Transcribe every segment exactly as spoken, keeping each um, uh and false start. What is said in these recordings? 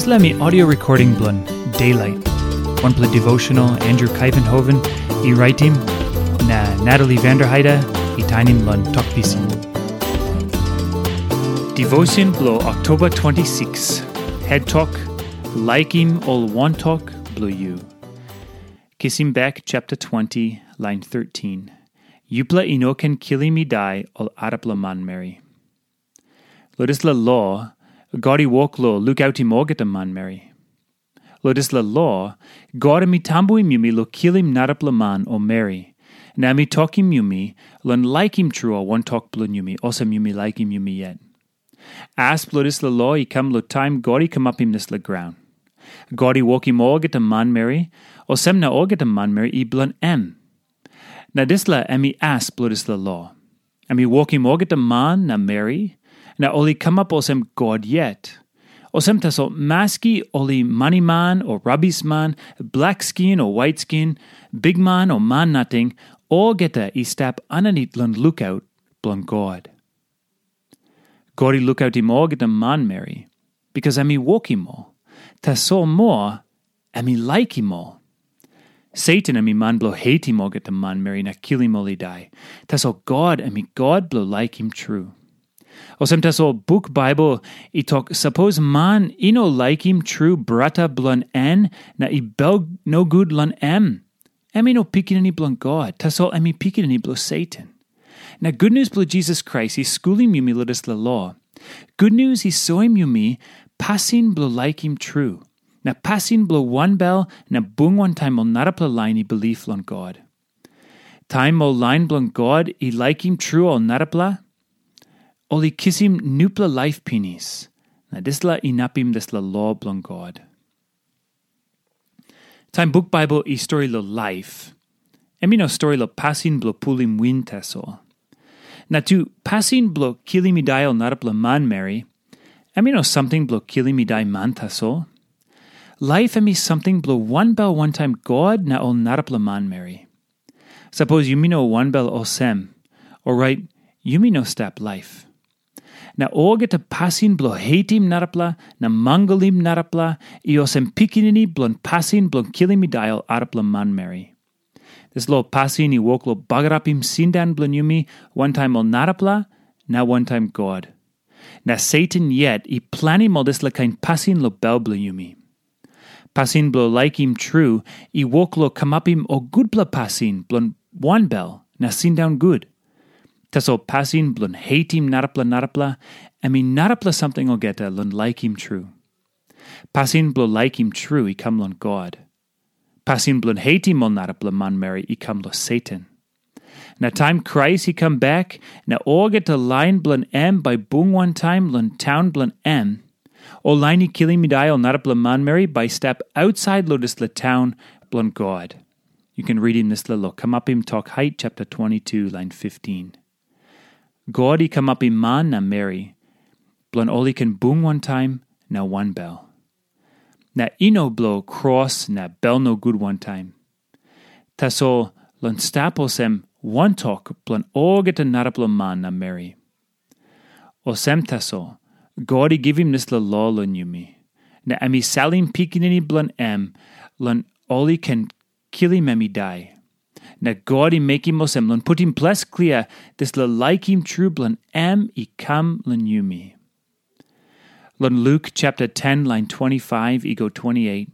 Dispela mi audio recording bilong Daylight. Wanpela devotional Andrew Kaivenhoven i raitim, na Natalie Vanderheide i tainim long Tok Pisin. Devotion bilong Oktoba twenty-six. Head Tok, Laikim Ol Wantok Bilong Yu. Kisim Bek chapter twenty, lain thirteen. Yupela i no ken kilim i dai ol arapela manmeri. Long dispela lo, God i wok long lukautim olgeta manmeri. Long dispela lo, God em i tambuim yumi long kilim narapela man o meri, na em i tokim yumi long laikim tru ol wantok bilong yumi, olsem yumi laikim yumi yet. As bilong dispela lo i kam long taim God i kamapim dispela graun. God i wokim olgeta manmeri, olsem na olgeta manmeri i bilong em. Na dispela em i as bilong dispela lo. Em i wokim olgeta man na meri, na ol i kamap olsem God yet. Olsem tasol, maski ol i maniman o rabisman, blakskin o waitskin, bikman o man nating, olgeta i stap aninit long lukaut bilong God. God i lukautim olgeta manmeri, bikas em i wokim ol. Tasol moa, em i laikim ol. Satan em i man bilong heitim olgeta manmeri na kilim ol i dai. Tasol God em i God bilong laikim tru. Olsem tasol buk Baibel i tok, sapos man i no laikim tru brata bilong en na i bel nogut long em, em i no pikinini bilong God, tasol em i pikinini bilong Satan. Na gutnius bilong Jisas Krais i skulim yumi long dispela lo. Gutnius i soim yumi pasin bilong laikim tru, na pasin bilong wanbel na bung wantaim ol narapela lain i bilip long God. Taim ol lain bilong God i laikim tru ol narapela, ol i kisim nupela laip pinis, na dispela inapim dispela lo bilong God. Taim buk Baibel i stori long laip, em i no stori long pasin bilong pulim win tasol. Na tu, pasin bilong kilim i dai ol narapela manmeri, em i no samting bilong kilim i dai man tasol. Laip em i samting bilong wanbel wantaim God na ol narapela manmeri. Sapos yumi no wanbel olsem, orait yumi no stap laip. Na olgeta pasin bilong heitim narapela na mangalim narapela i olsem pikinini bilong pasin bilong kilim i dai ol arapela manmeri. Dispela pasin i wok long bagarapim sindaun bilong yumi wantaim ol narapela na wantaim God. Na Satan yet i planim ol dispela kain pasin long bel bilong yumi. Pasin bilong laikim tru i wok long kamapim ol gutpela pasin bilong wanbel na sindaun gut. Tasol pasin bilong heitim narapela narapela, em i narapela samting olgeta long laikim tru. Pasin bilong laikim tru i kam long God. Pasin bilong heitim ol narapela manmeri i kam long Satan. Na taim Krais i kam bek, na olgeta lain bilong em bai bung wantaim long taun bilong em, ol lain i kilim i dai ol narapela manmeri bai i stap ausait long dispela taun bilong God. Yu ken ritim dispela long Kamapim Tok Hait chapter twenty-two, lain fifteen. God i kamapim man na meri, bilong ol i ken bung wantaim na wanbel. Na i no bilong kros na bel nogut wantaim. Tasol long stap olsem wantok bilong olgeta narapela man na meri. Olsem tasol, God i givim dispela lo long yumi, na em i salim pikinini bilong em long ol i ken kilim em i dai. Na God i mekim olsem long putim ples klia dispela laikim tru bilong em i kam long yumi. Long Luk chapter ten, lain twenty-five i go twenty-eight,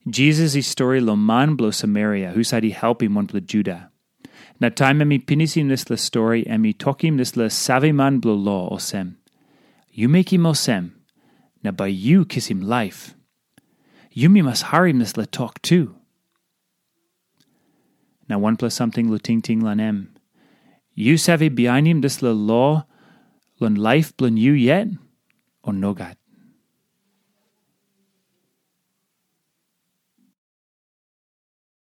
Jisas i stori long man bilong Samaria husat i helpim wanpela Juda. Na taim em i pinisim dispela stori, em i tokim dispela saveman bilong lo olsem, "Yu mekim olsem, na bai yu kisim laip. Yumi mas harim dispela tok tu." Na wanpela samting long tingting long em. Yu save bihainim dispela lo long laip bilong yu yet, o nogat?